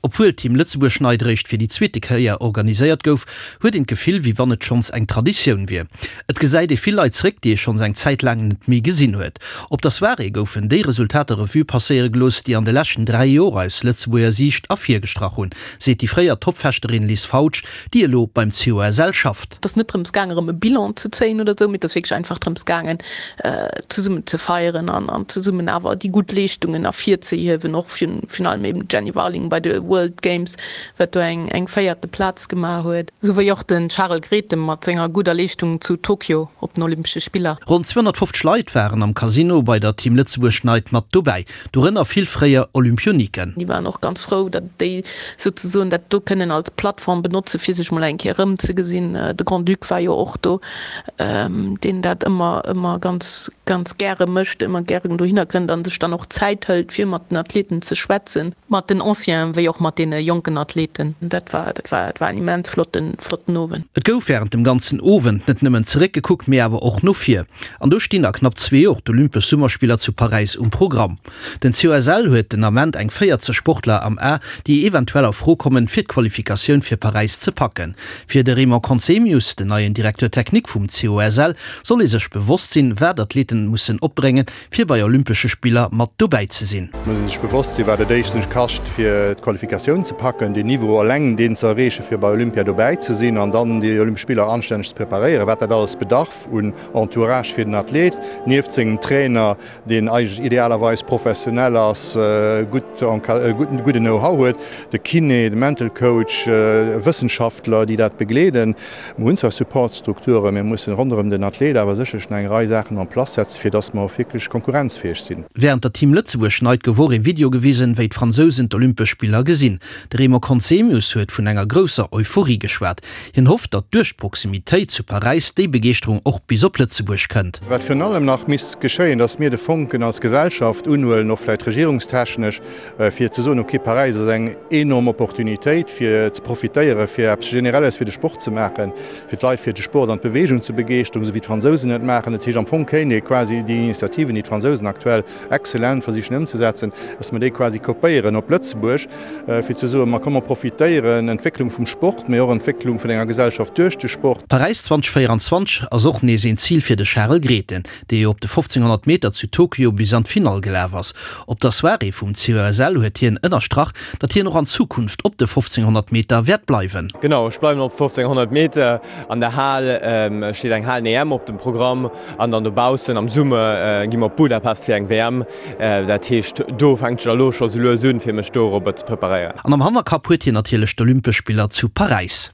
Obwuel d'Team Lëtzebuerg Night eréischt fir déi zweete Kéier organiséiert gouf, huet een d'Gefill, wéi wann et schonns eng Traditioun wier. Et gesäit ee vill Leit zeréck, déi ee schonns eng Zäit laang net méi gesinn huet. Op der Soirée goufen déi Resultater Revue passéiere gelooss, déi an de leschten 3 Joer aus Lëtzebuerger Siicht ervirgestrach hunn, seet déi fréier Toppfechterin Liz Fautsch, déi elo beim COSL schafft. Et ass net drëms gaangen, erëm e Bilan ze zéien oder esou, mee et ass wierklech einfach drëms gaangen, zesummen ze feieren an zesummen awer déi gutt Leeschtungen ervirzehiewen, och virun allem eben d'Jenny Warling bei de World Games, wat do eng eng véierte Plaz gemaach huet, sou wéi och de Charel Grethen mat senger gudder Leeschtung zu Tokio op den Olympesche Spiller. Ronn 250 Leit waren am Casino bei der Team Lëtzebuerg Night mat dobäi, dorënner vill fréier Olympioniken. Déi waren och ganz frou, datt déi souzesoen dat do kënnen als Plattform benotze fir sech mol eng Kéier erëmzegesinn. De Grand-Duc war jo och do, deen dat ëmmer ëmmer ganz ganz gäre mécht, ëmmer gären dohinner kënnt a sech dann och Zäit hëlt fir mat den Athleten ze schwätzen. Mat den Ancienen wéi och mat deene jonken Athleten. Dat war dat war dat war en immens flotten flotten Owend. Et gouf wärend dem ganzen Owend net nëmmen zeréckgekuckt, mee awer och no vir. An do stinn a knapp zwee Joer d'Olympesch Summerspiller zu Paräis um Programm. Den COSL huet den Ament eng 40 Sportler am A, déi eventuell a Fro kommen, fir d'Qualifikatioun fir Paräis ze packen. Fir de Raymond Conzemius, den neien Directeur technique vum COSL, soll ee sech bewosst sinn, wat Athleten mussen opbréngen, fir bei Olympesche Spiller mat dobäi ze sinn. Et muss ee sech bewosst sinn, wat et éischtens kascht, fir d'Qualifikatioun ze packen, deen Niveau eleng deen ze erreechen, fir bei Olympia dobäi ze sinn an dann déi Olympesch Spiller anstänneg ze preparéieren, wat dat alles bedarf un Entourage fir den Athlet, nieft sengem Trainer, deen eigentlech idealerweis professionell ass, gutt gudden Know-how huet, de Kiné, de Mental Coach, Wëssenschaftler, déi dat begleeden. Mer hunn zwar Supportstrukturen, mä mussen ronderëm den Athlet awer sécherlech nach eng Rei Saachen en place setzen, fir dass mer och wierklech konkurrenzfäeg sinn. Wärend der Team Lëtzebuerg Night gouf och ee Video gewisen, wéi d'Fransousen d'Olympesch Spiller gesinn. De Raymond Conzemius huet vun enger grousser Euphorie geschwat. Hien hofft, datt duerch d'Proximitéit zu Paräis déi Begeeschterung och bis op Lëtzebuerg kënnt. Wat virun allem nach misst geschéien, datt mir de Fonken als Gesellschaft unhuelen, och vläicht regierungstechnesch, fir ze soen, okay, Paräis ass eng enorm Opportunitéit, fir ze profitéieren, fir eppes Generelles fir de Sport ze maachen, fir d'Leit fir de Sport an d'Beweegung ze begeeschteren, esou wéi d'Fransousen et maachen. Dat heescht, am Fong kéint ee quasi déi Initiativen, déi d'Fransousen aktuell excellent versichen ëmzesetzen, datt mer déi quasi kopéieren op Lëtzebuerg, fir ze soen, ma komm mer profitéieren, Entwécklung vum Sport, mee och Entwécklung vun enger Gesellschaft duerch de Sport. Paräis 2024 ass och nees een Zil fir de Charel Grethen, dee jo op de 1500 Meter zu Tokio bis an d'Finall gelaf ass. Op der Soirée vum COSL huet hien ënnerstrach, datt hien och an Zukunft op de 1500 Meter wäert bleiwen. Genau, ech bleiwen op 1500 Meter. An der Hal steet eng Halen-EM op dem Programm an dann dobaussen am Summer gi mer op Budapest fir eng WM. Dat heescht, do fänkt sech elo scho sou lues un, fir mech dorobber ze preparéieren. An am Hannerkapp huet hien natierlech d'Olympesch Spiller zu Paräis.